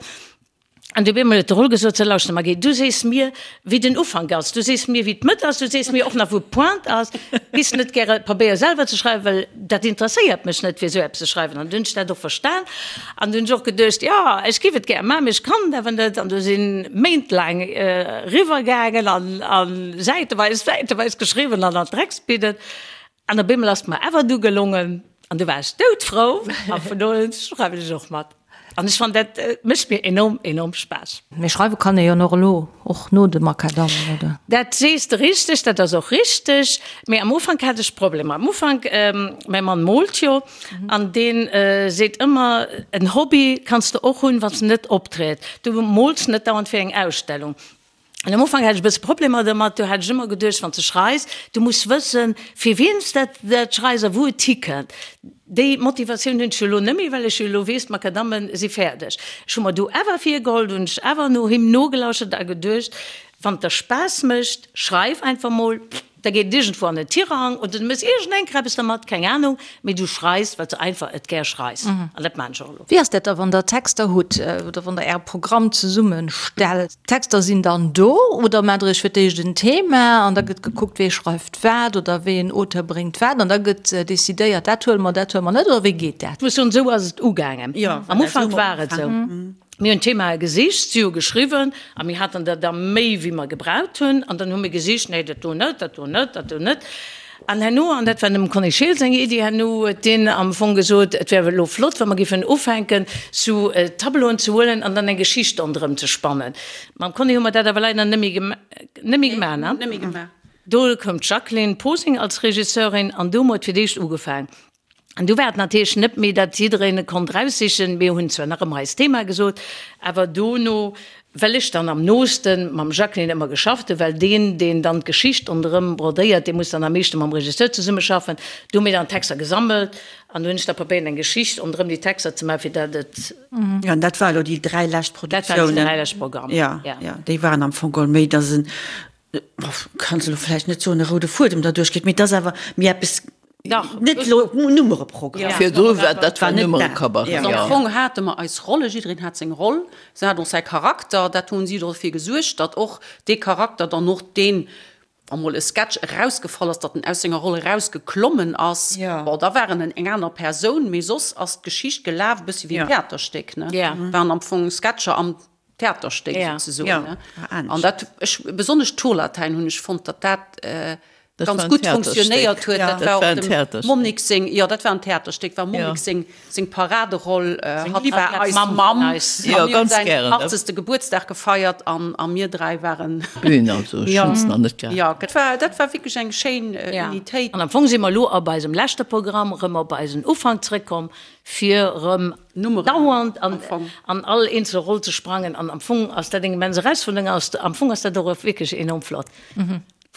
An du op eemol huet de Roll gesot, sou lauschter Marguy, du sees mir, wéi den Ufank ass, du sees mir, wéi d'Mëtt ass, du sees mir och nach, wou d'Pointe ass. Giss net gäre Pabéier selwer ze schreiwen, well dat interesséiert mech net, fir esou eppes ze schreiwen. An du hunn ech dat och verstan an du hunn ech och geduecht, jo, ech giff et gär maachen, mee ech kann et awer net. An du si méintlaang eriwwer gaangen an säiteweis, säiteweis geschriwwen an an d'Drecksbidden. An op eemol ass et mer awer du gelongen an du war ech doudfrou a vun do un schreiwen ech och mat. An ech fannen dat mécht mir enorm, enorm Spaass. Mee schreiwe kann ee jo och elo, och no de Makadammen, oder? Dat sees de richteg, dat ass och richteg. Mee am Ufank hat ech Problemer. Am Ufank, mäi Mann moolt jo an dee seet ëmmer, en Hobby kanns de och hunn, wann s de net optritt. Du mools net dauernd fir eng Ausstellung. An am Ufank hat ech e bësse Problemer domat. Do hat ech ëmmer geduecht, wann s de schreis, du muss wëssen, fir wien s dat dat schreis a wou et hikënnt. Déi Motivatioun hunn ech jo elo net méi, well ech jo elo weess, d'Makadamme si fäerdeg. Ech hu mer du awer virgeholl, du hunn ech awer no him nogelauschtert a geduecht, wann et der Spaass mécht, schreif einfach mol. Da geet et iergendwou an en Tirang oder du méchs iergendeng Kreppes dermat, keng Ahnung, mee du schreis, well s de einfach et gär schreis. An dat maan ech och elo. Wéi ass dat da, wann der Texter hutt oder wann der Äre Programm zesummestellt? D'Texter sinn dann do oder maacht der Iech fir d'éischt en Thema an da gëtt gekuckt, wee schreift wat oder wéi en Auteur bréngt wat an da gëtt decidéiert, dat huele mer, dat huele mer net oder wéi geet dat? Ech muss soen, esou ass et ugaangen. Am Ufank war et esou. Mir hunn Themae gesicht, si hu geschriwwen a mir haten der da méi wéi mer gebraucht hunn an dann hu mir gesicht, nee dat do net, dat do net, dat do net. An herno, an dat war dem Conny Scheel seng Iddi, herno huet deen am Fong gesot, et wär elo flott, wa mer géifen ufänken sou Tableauen ze huelen an dann eng Geschicht ronderëm ze spannen. Mam Conny hu mer dat awer leider net méi gemaach, ne? Do koum d'Jacqueline Posing als Regisseurin an do hu mer et fir d'éischt ugefaang. An du war et natierlech net méi, datt jiddereen e konnt raussichen. Mir hunn zwar nach ëmmer eist Thema gesot, awer dono, well ech dann am nooste mam Jacqueline ëmmer geschafft hunn, well deen, deen dann d'Geschicht ronderëm brodéiert, dee muss dann am meeschte mam Regisseur zesummeschaffen, du hu mir dann d'Texter gesammelt an du hunn ech da probéiert, eng Geschicht ronderëm déi Texter ze maachen, fir datt et. Jo, an dat war elo déi 3 lescht Produktiounen. Dat waren déi 3 lescht Programmer, jo. Jo, déi waren am Fong geholl méi, datt en, kanns elo vläicht net soen, e roude Fuedem derduerch geet, mee et ass awer méi eppes, net elo Nummereprogramm. Virdru war dat war Nummerecabaret, jo. Am Fong hate mer eis Rolle, jiddereen hat seng Roll, se hat och säi Charakter, dat hunn si dofir gesuergt, datt och dee Charakter dann och deen, wa mol e Sketch erausgefall ass, datt en aus senger Roll erausgeklommen ass, bon, da war en eng aner Persoun, mee soss ass d'Geschicht gelaf e bëssi wéi en Theaterstéck, ne, waren am Fong Sketcher am Theaterstéck souzesoen. An dat, ech, besonnesch d'Tourlatäin hunn ech fonnt, datt dat ganz gutt funktionéiert huet. Dat war och dem Monique seng, jo, dat war en Theaterstéck, war Monique seng, seng Paraderoll. Hatt war eis Mamm. A mir hunn säin achtzegste Gebuertsdag gefeiert an a mir 3 waren. Bühn, also ech hunn se nach net gehat. Jo, dat war, dat war wierklech eng schéin Unitéit. An am Fong si mer elo op eisem leschte Programm erëm op eisen Ufank zrëckkomm, fir erëm dauernd an all eenzel Roll ze sprangen. An am Fong ass dat eng immens Erausfuerderung, am Fong ass dat och wierklech enorm flott.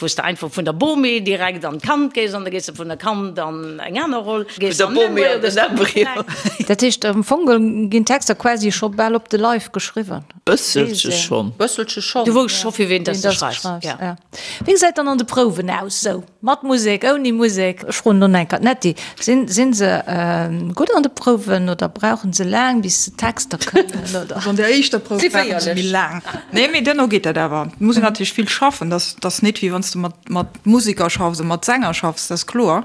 Wou s de einfach vun der Bomie direkt an d'Kand gees an da gees de vun der Kand an eng aner Roll. Vun der Bomie an den Embryo. Dat heescht, am Fong ginn d'Texter quasi scho bal op de Leif geschriwwen. Bësselche schonn. Bësselche schonn. Du wousst scho fir ween dass de schreifs, ja. Wéi gesäit dann an de Prouwen aus, sou mat Musek, ouni Musek? Ech froen elo nach eng Kéier d'Netty, Sinn, sinn se gutt an de Prouwen oder brauchen se laang bis se d'Texter kënnen, oder? Also an der éischter Prouf brauchen se méi laang. Nee, mee duerno geet dat awer. Et muss een natierlech vill schaffen. Dat ass net wéi wann s de mat, mat Museker schaffs a mat Sänger schaffs, dat ass kloer.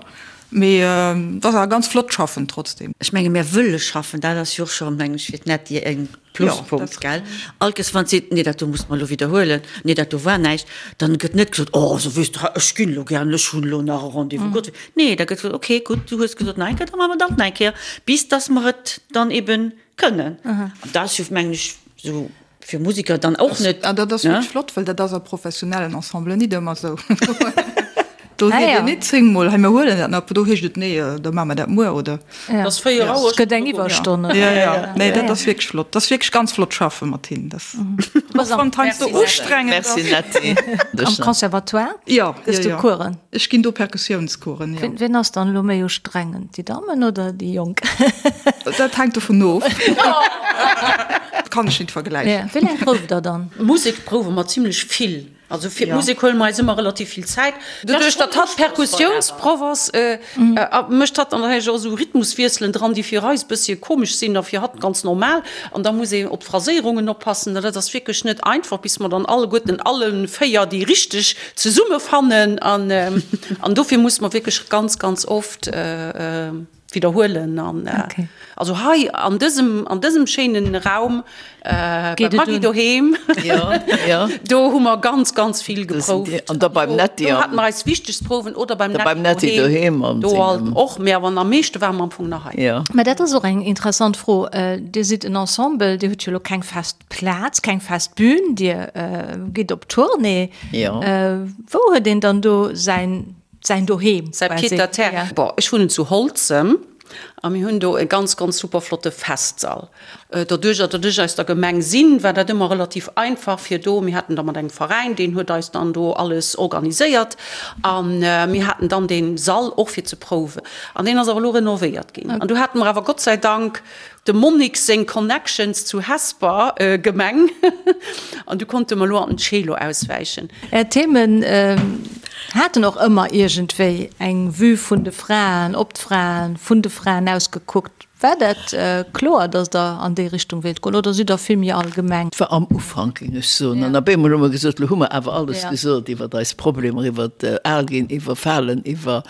Mee et ass awer ganz flott schaffen trotzdem. Ech menge mir wëlle schaffen, dat ass jo och scho, meng ech, fir d'Netty e Pluspunkt, gell? All Kéiers wann seet, nee dat do musse mer elo widderhuelen, nee dat do war näischt, dann gëtt net gesot, oh also weess de, ech ginn elo gären, ech hunn elo nach e Rendez-vous, Gott, nee, da gëtt gesot, okay, gutt, du hues gesot nach eng Kéier, da maache mer dat nach eng Kéier, bis datt mer et dann eben kënnen. An dat ass jo, mengen ech, esou fir Musiker dann och net. An dat ass wierklech flott, well dat ass a professionellen Ensemblen nit ëmmer esou. Do seet een nit zéngmol, hei mir huelen dat nach, do heescht et, nee, da maache mer dat muer oder. Et ass 4 Auer. Et gëtt eng Iwwerstonn. Jo, jo, nee, dat ass wierklech flott. Dat ass wierklech ganz flott schaffe mat hinnen. Dat ass och wann et heiansdo ustrengend ass. Merci Netty. Am Conservatoire Jo, gëss jo, du jo. Coursen? Ech ginn do Perkussiounscoursen, jo. Wien ass dann elo méi ustrengend, déi Dammen oder déi Jonk? Dat hänkt dovun of. Kann ech nit vergläichen. Wéi laang prouft der dann? Musek prouwe mer zimlech vill. Also fir d'Musek huele mer eis ëmmer relativ vill Zäit. Doduerch, datt hatt Perkussiounsproff ass, mécht hatt dann natierlech och esou Rhythmuswiesselen dran, déi fir eis e bëssche komesch sinn a fir hatt ganz normal. An da muss een op d'Phraséierungen oppassen. Dat ass wierklech net einfach, bis mer dann alleguerten alle 4 déi richteg zesummefannen. An dofir musse mer wierklech ganz, ganz oft widderhuelen. An also hei an dësem, an dësem schéinen Raum bei Maggy doheem, do hu mer ganz, ganz vill geprouft. An da beim Netty. Do hate mer eis wichtegst Prouwen oder beim Netty doheem. Do alt och, mee awer am meeschte ware mer am Fong nach hei. Mä dat ass och eng interessant Fro. Dir sidd en Ensemble, Dir hutt jo elo keng fest Plaz, keng fest Bühn, Dir gitt op Tournée. Wou huet een dann do säin, säin Doheem Säi Pied-à-terre. Bon, ech wunnen zu Holzem a mir hunn do e ganz, ganz super flotte Festsall. Doduerch, datt ech aus der Gemeng sinn, war dat ëmmer relativ einfach fir do, mir haten da mat engem Veräin, deen huet eis dann do alles organiséiert a mir haten dann dee Sall och fir ze prouwen. An deen ass awer elo renovéiert ginn. An do hate mer awer Gott sei Dank Dem Monique seng Connections zu Hesper Gemeng an du konnte mer lo an den Celo auswäichen. Är Themen haten och ëmmer iergendwéi eng Vue vun de Fraen, op d'Fraen, vun de Fraen aus gekuckt. War dat kloer, datt Der an déi Richtung wéilt goen oder sidd Der vill méi allgemeng? Et war am Ufank, géing ech soen. An op eemol hu mer gesot, lo hu mer awer alles gesot iwwer eis Problemer, iwwer al ginn, iwwer falen, iwwer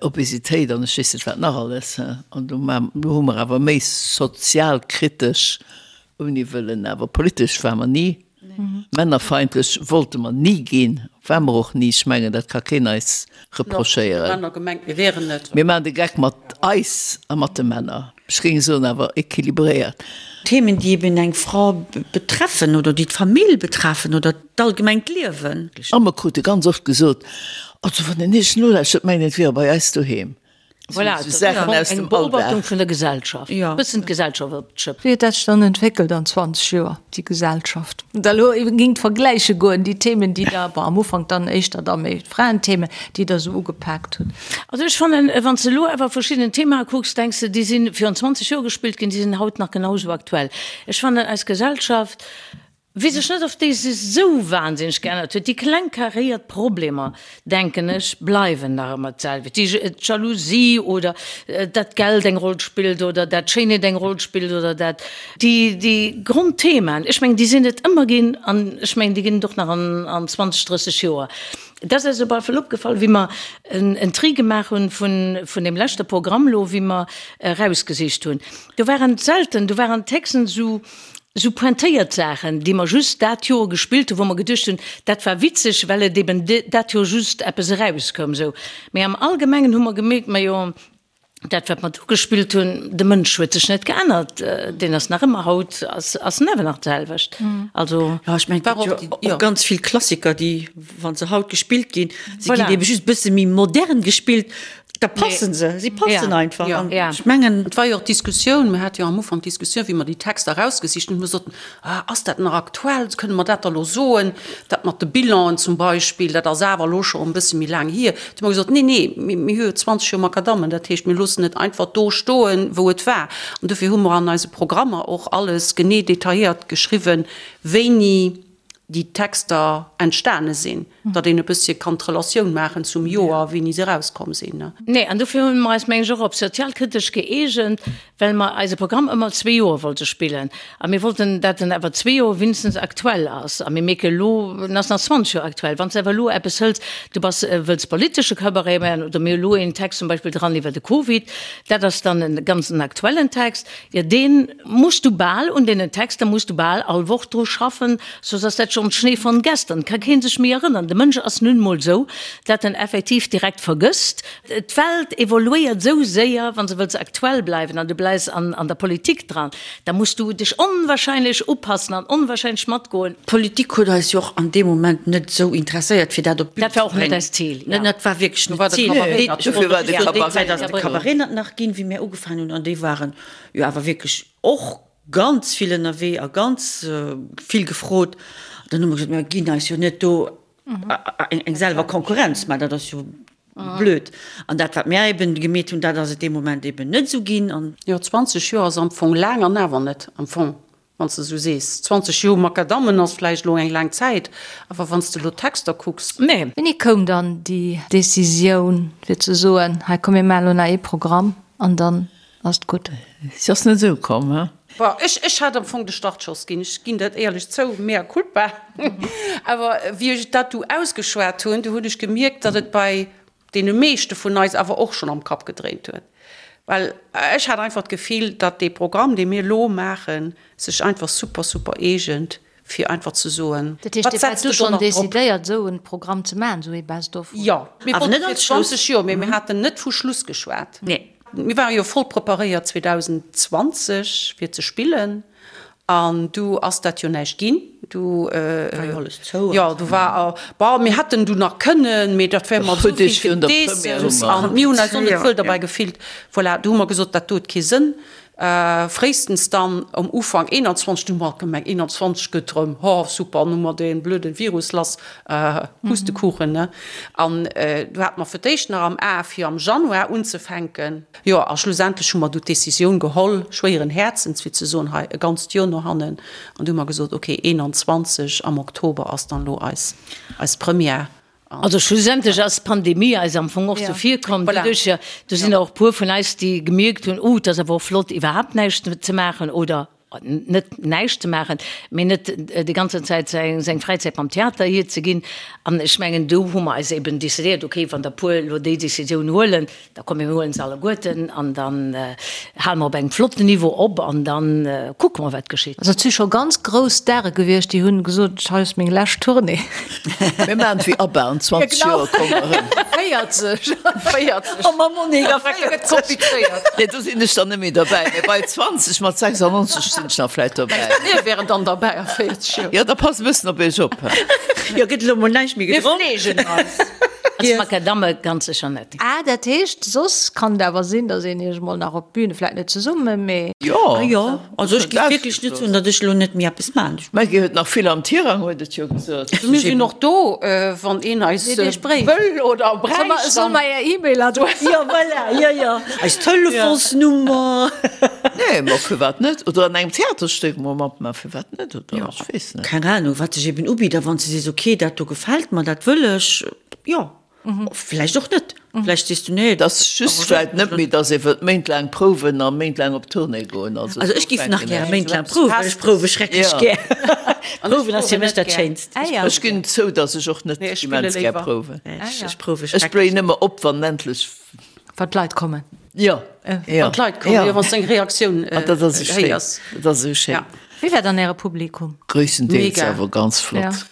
Obesitéit an ech weess net wat nach alles. An do hu mer awer méi sozialkritesch, ouni wëllen awer politesch ware mer ni, männerfeindlech wollte mer ni ginn, ware mer och ni. Ech mengen, dat ka keen eis reprochéieren. Mir maachen de Geck mat eis a mat de Männer. Ech géing soen, awer équilibréiert. Themen, déi eben eng Fra betreffen oder déi d'Famill betreffen oder d'allgemengt Liewen. A mer krute ganz oft gesot, Also wann een Iech nolauschtert, mengt een, et wier bei eis doheem. Voilà, Sou Saachen aus eng dem Beobachtung Alldag. vun der Gesellschaft, Ja. bëssen d'Gesellschaft op d'Schëpp. Wéi huet dat sech dann entwéckelt an 20 Joer, déi Gesellschaft? Wann Der elo eben géingt vergläiche goen, déi Themen, déi Der, bon, am Ufank dann éischter da méi d'Fraenthemen, déi Der esou ugepaakt hutt. Also ech fannen, wann s de elo awer verschidden Themae kucks, denks de, déi si virun 20 Joer gespillt ginn, déi sinn haut nach genau esou aktuell. Ech fannen, eis Gesellschaft, weess ech net, ob déi sech esou wahnsinneg geännert huet. Déi kleng karéiert Problemer, denken ech, bleiwen nach ëmmer d'selwecht. Déi Jalousie oder dat Geld eng Roll spillt oder dat Schéinheet eng Roll spillt oder dat, déi, déi Grondthemaen, ech mengen, déi sinn et ëmmer ginn an ech mengen, déi ginn et och nach an, an 20, 30 Joer. Dat ass eis op alle Fall opgefall, wéi mer en Tri gemaach hunn vun, vun deem leschte Programm elo, wéi mer erausgesicht hunn. Do waren selten, do waren d'Texten esou, Sou pointéiert Saachen, déi mer just dat Joer gespillt hunn, wou mer geduecht hunn, dat war witzeg, well et eben dat Joer just eppes erauskoum. Sou. Mee am Allgemengen hu mer gemierkt, majo, dat wat mer do gespillt hunn, de Mënsch huet sech net geännert, deen ass nach ëmmer haut, ass, ass en awer nach d'selwecht. Also. Jo, ech mengen, et gëtt jo och ganz vill Klassiker, déi, wa se haut gespillt ginn, se ginn ebe just e bësse méi modern gespillt. Da passen se, si passen einfach. An ech mengen. Et war jo och d'Diskussioun, mir hate jo am Ufank d'Diskussioun, wéi mer déi Texter erausgesicht hunn, mir soten, ah, ass dat nach aktuell, kënne mer dat da elo soen, dat mat de Bilanen zum Beispill, dat ass awer elo scho e bësse méi laang hier. Du hu mer gesot, nee, nee, mir hu jo 20 Joer Makadammen, dat heescht, mir loossen et einfach do stoen, wou et war. An dofir hu mer an eise Programmer och alles genee detailléiert geschriwwen, wéini déi Texter entstane sinn, datt een e bëssche kann d'Relatioun maachen zum Joer, wéini se erauskomm sinn. Nee, an dofir hu mer eis, meng ech, och op sozialkritesch gëeegent, well mer eise Programm ëmmer zwee Joer wollte spillen. A mir wollten, dat en awer zwee Joer wéinstens aktuell ass. A mir mierke elo, en ass nach 20 Joer aktuell. Wann s de awer elo eppes hëls, du bass, wëlls politesche Cabaret maachen, oder mir hu elo een Text zum Beispill dran iwwer de Covid, dat ass dann e ganz en aktuellen Text, jo, deen Muss du bal, un deenen Texter muss du bal all Woch dru schaffen, soss ass dat schonn Schnee von gestern, ka kee sech méi erënnern. De Mënsch ass nun emol esou, dat en effektiv direkt vergësst. D'Welt evoluéiert esou séier, wann s de wëlls aktuell bleiwen an du bleis an an der Politik dran, da muss du dech onwahrscheinlech upassen an onwahrscheinlech matgoen. D'Politik huet eis jo och an deem Moment net esou interesséiert, fir dat op d'Bün ze bréngen. Dat war och net eist Zil, jo. Dat war wierklech net d'Zil. Dofir war de Cabaret. Déi Zäit ass de Cabaret net nach ginn, wéi mir ugefaangen hunn, an déi waren jo awer wierklech och ganz vill ënnerwee a ganz vill gefrot. Dann hu mer gesot, mir ginn eis jo net do eng selwer Konkurrenz, mä dat ass jo blöd. An dat, wat mir eben gemeet hunn, dat ass et dee Moment eben net esou ginn. An. Jo, 20 Joer ass am Fong laang an awer net am Fong, wann s de esou sees. 20 Joer Makadammen ass vläicht elo eng laang Zäit, awer wann s de elo d'Texter kucks. Nee. Wéini koum dann déi Decisioun, fir ze soen, hei komm mir maachen elo nach ee Programm an dann Ass gutt. Si ass net esou komm, he? Bon, ech, ech hat am Fong de Startschoss ginn, ech ginn dat éierlech zou, mea culpa. Awer wéi ech dat du ausgeschwat hunn, du hunn ech gemierkt, datt et bei deene meeschte vun eis awer och schonn am Kapp gedréint huet. Well ech hat einfach d'Gefill, datt dee Programm, dee mir elo maachen, sech einfach super, super eegent fir einfach ze soen, Dat heescht, wat Dir waart setzt du de do schonn nach drop? decidéiert, esou e Programm ze maachen, esou ee Best of? Jo, mir Awer wollten net fir als Schluss. 20 Joer, mee mir haten net vu Schluss geschwat. Nee. Mir ware jo voll preparéiert 2020 fir ze spillen an du ass dat jo näischt ginn. Du War jo alles zou. Jo, du war, bon, mir hätten du nach kënnen, mee dat wär mer esou Huet Iech vill virun der Première Gedeessems hu mer. an mir hunn eis och net Jo, wuel derbäi jo. gefillt. Voilà, du hu mer gesot, dat do huet kee Sënn. Fréistens dann um Ufank 21, du hu mer gemengt 21 gëtt rëm, ho super, an hu mer dee blöde Virus lass, Pustekuchen, ne? An du hate mer fir d'éischt nach am A fir am Januar unzefänken. Jo, a schlussendlech hu mer du d'Decisioun geholl, schwéieren Häerzens, fir ze soen, hei e ganzt Joer no hannen. An du hu mer gesot, okay, 21 am Oktober ass dann elo eis, eis Première. Also schlussendlech ass d'Pandemie eis am Fong och zevirkomm. Doduerch, do sinn der och e puer vun eis, déi gemierkt hunn, oh, et ass awer och flott iwwerhaapt näischt ze maachen oder net näischt ze maachen, mee net déi ganzen Zäit seng Fräizäit mam Theater hierzeginn. An ech mengen, do hu mer eis eben decidéiert, okay, wann der puer elo déi Decisioun huelen, Da komm mir huelen se alleguerten an dann hale mer op engem flotten Niveau op an dann kucke mer wat geschitt. Also et si scho ganz grouss Stare gewiescht, déi hunn gesot, hei ass meng lescht Tournée. Mir maachen et wéi ABBA, an 20 Joer komme mer erëm. 40! 40! Oh ma Monique, a 40! Komplizéiert. Nee, do sinn ech dann net méi derbäi, mee bei 20 mat 96 sinn ech nach vläit dobäi. Mir wären dann derbäi a 40 Joer. Jo, da passt e bëssen op iech op. Jo, gëtt elo mol näischt méi gedronk. Mir fleegen eis. Als Makadamme ganz sécher net. Ah, dat heescht, soss kann et awer sinn, datt een iech emol nach op d'Bühne, vläit net zesummen, mee. Jo, Ah jo, also ech géif wierklech net soen, datt ech elo net méi eppes maachen. D'Maggy huet nach vill am Tirang, huet et jo gesot. Mir sinn och do, wann een eis wëll oder bräicht. Soll mer är E-Mail-Adress? Jo, voilà, jo, jo, eis Telefonsnummer. Nee, ma firwat net? Oder an engem Theaterstéck mol matmaachen, firwat net? Oder ech weess net. Keng Ahnung, wat sech eben ubitt. A wann s de sees, okay, dat do gefält mer, dat wëll ech, jo. Vläicht och net. Vläicht sees du, nee, Et ass just vläicht net méi, datt ee wëllt méintlaang prouwen a méintlaang op Tournée goen. Also ech géif nach gäre méintlaang prouwen, well ech prouwe schrecklech gär. Prouwen ass fir mech dat Schéinst. Ech ginn zou, datt ech och net immens gär prouwen. Ech prouwe Ech schrecklech. bléien ëmmer op, wann endlech. Wann d'Leit kommen. Jo, jo. Wann d'Leit kommen, jo, wann s de eng Reaktioun héiers. Dat ass esou schéin. Wéi war dann äre Publikum? Gréisstendeels awer ganz flott.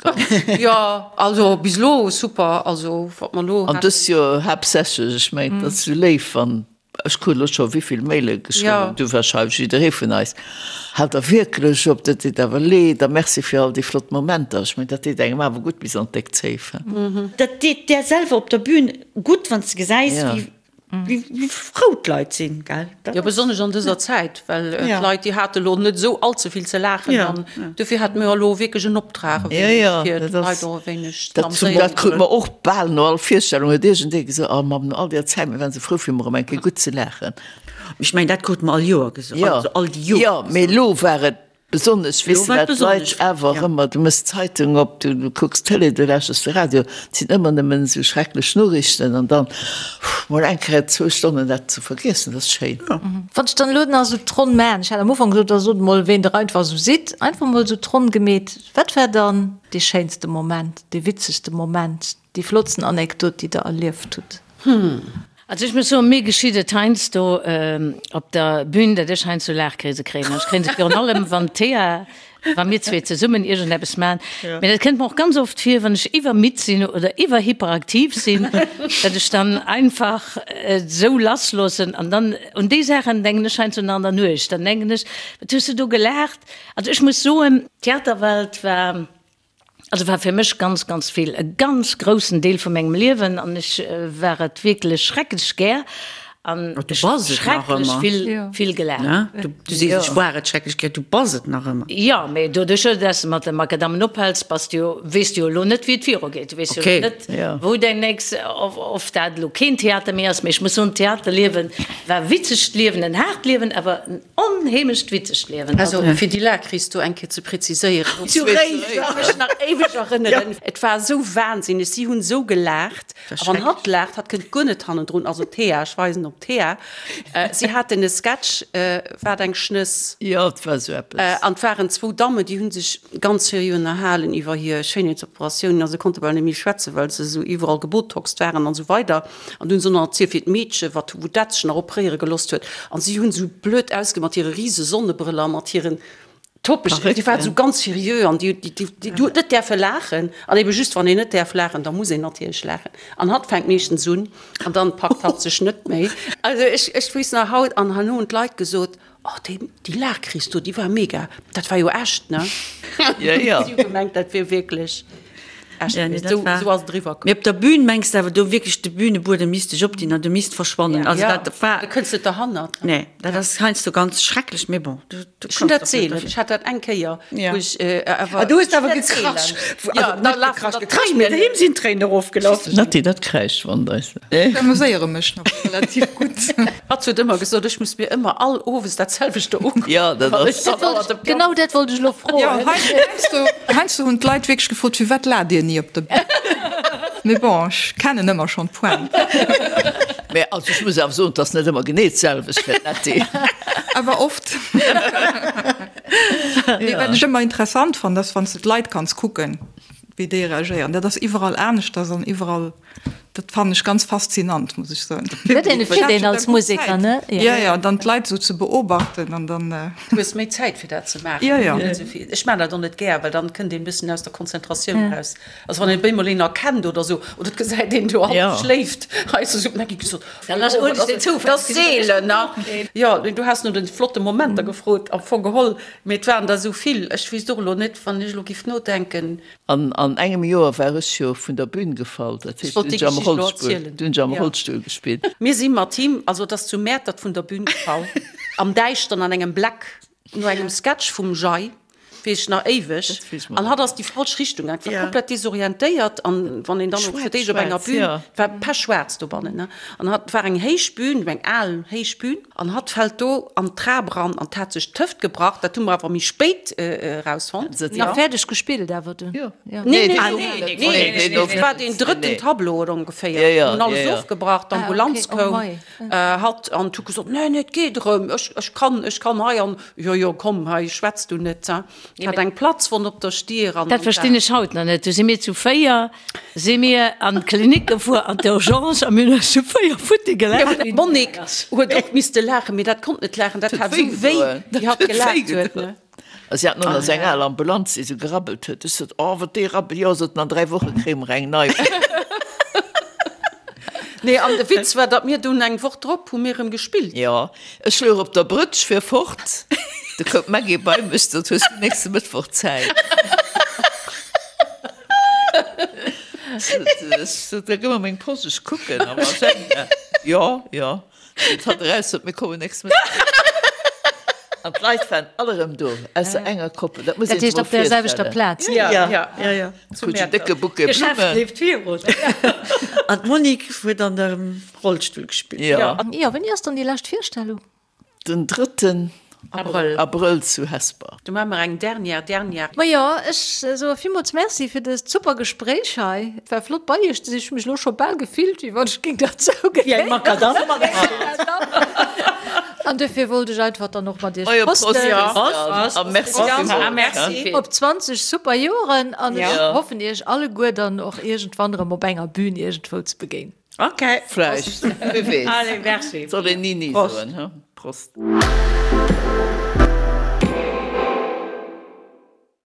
Jo, also bis elo super, also wat mer elo haten. An dëst Joer haaptsächlech, ech mengen, et ass esou léif, wann, ech krut elo scho wéivill Maile geschriwwen, du wahrscheinlech, jidderee vun eis, Haalt der wierklech op, dat deet awer leed a merci fir all déi flott Momenter. Ech mengen, dat deet engem awer gutt bis an d'déck Zéif. Dat deet där selwer op der Bühn gutt, wann s de gesäis, wéi. Wéi frou d'Leit sinn, gell? Jo, besonnesch an dëser Zäit, well d'Leit, déi hate lo net esou all ze vill ze laachen an dofir hate mir elo wierklech en Optrag e wéineg, fir d'Leit och e wéineg ze amüséieren. Dat krute mer och bal no all Virstellung, huet iergendee gesot, Oh Mamm, no all deer Zäit, mir waren esou frou fir emol erëm eng Kéier gutt ze laachen. Ech mengen, dat krute mer all Joer gesot, also all déi Joren. Jo, mee elo war et Besonnesch, weess de, well d'Leit awer ëmmer, du méchs d'Zeitung op, du kucks d'Tëlee, du lauschters de Radio, et sinn ëmmer nëmmen esou schrecklech Noriichten an dann mol eng Kéier zwou Stonnen dat ze vergiessen, dat ass schéin. Wann ech dann elo nach esou d'Ronn maachen, ech hat am Ufank gesot, da sot emol, ween der einfach esou sidd, einfach emol esou d'Ronn gemeet, wat war dann dee schéinste Moment, dee witzegste Moment, Déi flottsten Anekdot, déi der erlieft hutt? Also ech muss soen, mir geschitt et heiansdo op der Bühn, datt ech heiansdo Laachkrise kréien. An ech kréien se virun allem, wann d'Thea, wa mir zwee zesummen iergendeppes maachen. Mee dat kënnt mer och ganz oft vir, wann ech iwwermidd sinn oder iwwerhyperaktiv sinn, datt ech dann einfach et esou lassloossen. An dann, un déi Saachen denken ech heiansdo nach an der Nuecht. Dann denken ech, wat hues du do gelaacht? Also ech muss soen, d'Theaterwelt war Also war fir mech ganz, ganz vill, e ganz groussen Deel vu mengem Liewen an ech war et wierklech schrecklech gär an Du bass et nach schrecklech ëmmer. vill, vill gelaacht. Ne? Du, du sees, ech war et schrecklech gär, du bass et nach ëmmer. Jo, mee doduerch, dass de mat de Makadammen ophäls, bass du jo, weess du jo elo net, wéi et virugeet. Du weess jo Okay. elo net, wou däin nächst, of, of dat elo keen Theater méi ass. Mee ech muss soen, d'Theaterliewe war witzegt Liewen, en haart Liewen, awer en Onheemlecht witzegt Liewen. Also fir déi Laachkris do eng Kéier ze präziséieren, zu Réiser, ech ka mech nach éiweg erënneren, et war esou wahnsinneg, si hunn esou gelaacht, a wann hatt laacht, hatt kënnt guer net hannendrun, also d'Thea, ech weisen op d'Thea, si haten e Sketch, Wat eng Schnëss. Jo, et war esou eppes. An et waren zwou Dammen, déi hu sech ganz seriö ënnerhalen iwwer hir Schéinheetsoperatiounen a se konnte bal net méi schwätzen, well se esou iwwerall gebotoxt waren an esou weider. An du hunn se nach erzielt, wéi d'Meedche, wat, wou dat sech nach opréiere gelooss huet. An si hunn esou blöd ausge mat hire rise Sonnebrëller, mat hiren Toppeg, déi waren esou ganz seriö an déi, déi, déi, déi huet net däerfe laachen. An ebe just, wann een net däerf laachen, da muss een natierlech laachen. An hatt fänkt meeschtens un an dann packt hatt sech net méi. Also ech, ech weess nach haut, an herno hunn d'Leit gesot, Oh, déi, déi Laachkris do, déi war mega. Dat war jo echt, ne? Ja, ja. Si hu gemengt, dat wier wierklech echt Ja, nee, gewiescht. dat Esou, war. esou ass et eriwwer komm. Mee op der Bühn mengs de awer do wierklech, de Bühnebuedem misst sech opdinn an du misst verschwannen. Also Ja, dat war. da kënns net derhannert. Nee, dat ass heiansdo ganz schrecklech, mee bon, du, du Ech hunn kanns dat och net seelen. derfir. Ech hat dat eng Kéier, Ja. wou ech awer. Ah, du hues awer Ech wäert gekrasch. seelen. Ja, Also da net lafen gekrasch, der gekrasch, mee Tréinen. him sinn d'Tréinen erofgelaf. Natti, dat kräischt wann eis. Ech amuséiere mech nach relativ gutt. Hatt huet ëmmer gesot, ech muss mir ëmmer all Owes dat selwechte ukucken. Ja, dat ass. Dat wollt ech, genau dat wollt ech elo froen. Jo, heiansdo, heiansdo hunn d'Leit wierklech gefrot, Firwat laacht Dir ni op der Bühn? Mee bon, ech kennen ëmmer schonn d'Pointe. Mä also ech muss awer soen, et ass net ëmmer genee d'selwecht fir d'Natty. Awer oft. Mee wat ech ëmmer interessant fannen, ass wann s de d'Leit kanns kucken, wéi déi reagéieren. Dat ass iwwerall aneschters an iwwerall. Dat fannen ech ganz faszinant, muss ech soen. Huet een e Feeling als Museker, ne? Jo, jo, dann d'Leit esou ze beobachten an dann. Du hues méi Zäit fir dat ze maachen. Jo, jo. Ech maachen dat och net gär, well dann kënnt een e bëssen aus der Konzentratioun eraus. Also wann een op eemol een erkennt oder esou, oder et gesäit een do hallef schléift, hei ass esou, da gi gesot, Dann ass oh, dat ass seelen, ne? Jo, du has no de flotte Momenter gefrot, am Fong geholl, mee et waren der esou vill. Ech weess och elo net, wann ech elo giff nodenken. An an engem Joer war ech jo vun der Bühn gefall, dat heescht, wollt du déi hunn ech am Geschicht elo Rollstull, erzielen. du hunn ech am Ja. Rollstull gespillt. Mir si mat him, also et ass zu Mäertert vun der Bühn gefall, am Däischteren an engem Bleck, no engem Sketch vum Jay, weess ech nach éiweg, Dat weess mer an hatt ass déi falsch Richtung gaang, war Ja. komplett desorientéiert an wann een dann och fir d'éischt op enger Schwaarz, Bühn, ja. et war pechschwaarz dobannen, ne, an hatt, et war eng héich Bühn, eng al héich Bühn, An hatt fällt do an d'Trap eran an hat sech d'Hëft gebrach. Dat hu mer awer méi spéit erausfonnt. Nach fäerdeg gespillt awer dunn? Jo. Nee, nee, nee, nee, et war deen drëtten Tableau oder ongeféier. Jo, jo. Hunn alles ofgebrach, d'Ambulanz koum, hatt an huet gesot, Nee, nee, et geet erëm, ech, ech kann, ech kann hei an. Jo, jo, komm, hei schwätz du net. Hat eng Platzwonn op der Stier an. Dat verstinn ech haut nach net. Du si mir zu 4 Si mir an d'Klinik gefuer, an d'Urgence, a mir hunn eis zu 4 futti gelaacht. D'Monique huet och misste laachen, mee dat konnt net laachen, dat hat esou wéi, wéi hatt gelaacht huet, ne? A si haten och nach esou eng al Ambulanz, déi esou gerabbelt huet. Ech sot, Oh, wat déi rabbelt! Jo, sot en, an 3 Woche kréie mer eng nei. Nee, an de Witz war, datt mir dunn eng Woch drop hu mir erëm gespillt. Jo, ech louch op der Brëtsch fir fort, du koum d'Maggy bei mech, sot, Hues du nächste Mëttwoch Zäit? Sot, da gëmm mer meng Posch, ech kucken am Agenda. Jo, jo. Seet hatt eraus, sot, mir kommen nächst Mëtteg. An d'Leit waren all erëm do, ausser enger Koppel. Dat muss Dat een sech heescht mol op der selwechter virstellen. Plaz? Ja, Ja, ja, ja. Krut en décke Bouquet D'Geschäft Blummen. leeft virun. An d'Monique huet an dem Rollstull gespillt. Jo. Jo, wéini ass dann déi lescht Virstellung? Den drëtten Abrëll. Abrëll zu Hesper. Do maache mer eng dernière, dernière. Majo, ech soe villmools Merci fir dëst super Gespréich hei. Et war flott bei iech ze sinn. Ech hu mech elo scho bal gefillt, wéi wann ech géing derzou Wéi eng Makadamm. An duerfir wollt ech einfach dann och mat iech Majo, Prost, prosten. Christiane. A merci villmools. Merci. Op 20 super Joren an ech hoffen iech alleguer dann och iergendwann erëm op enger Bühn iergendwou ze begéinen. Ok. Vläicht, wie weess. Allez, merci. Soll een ni ni soen, he? Prost.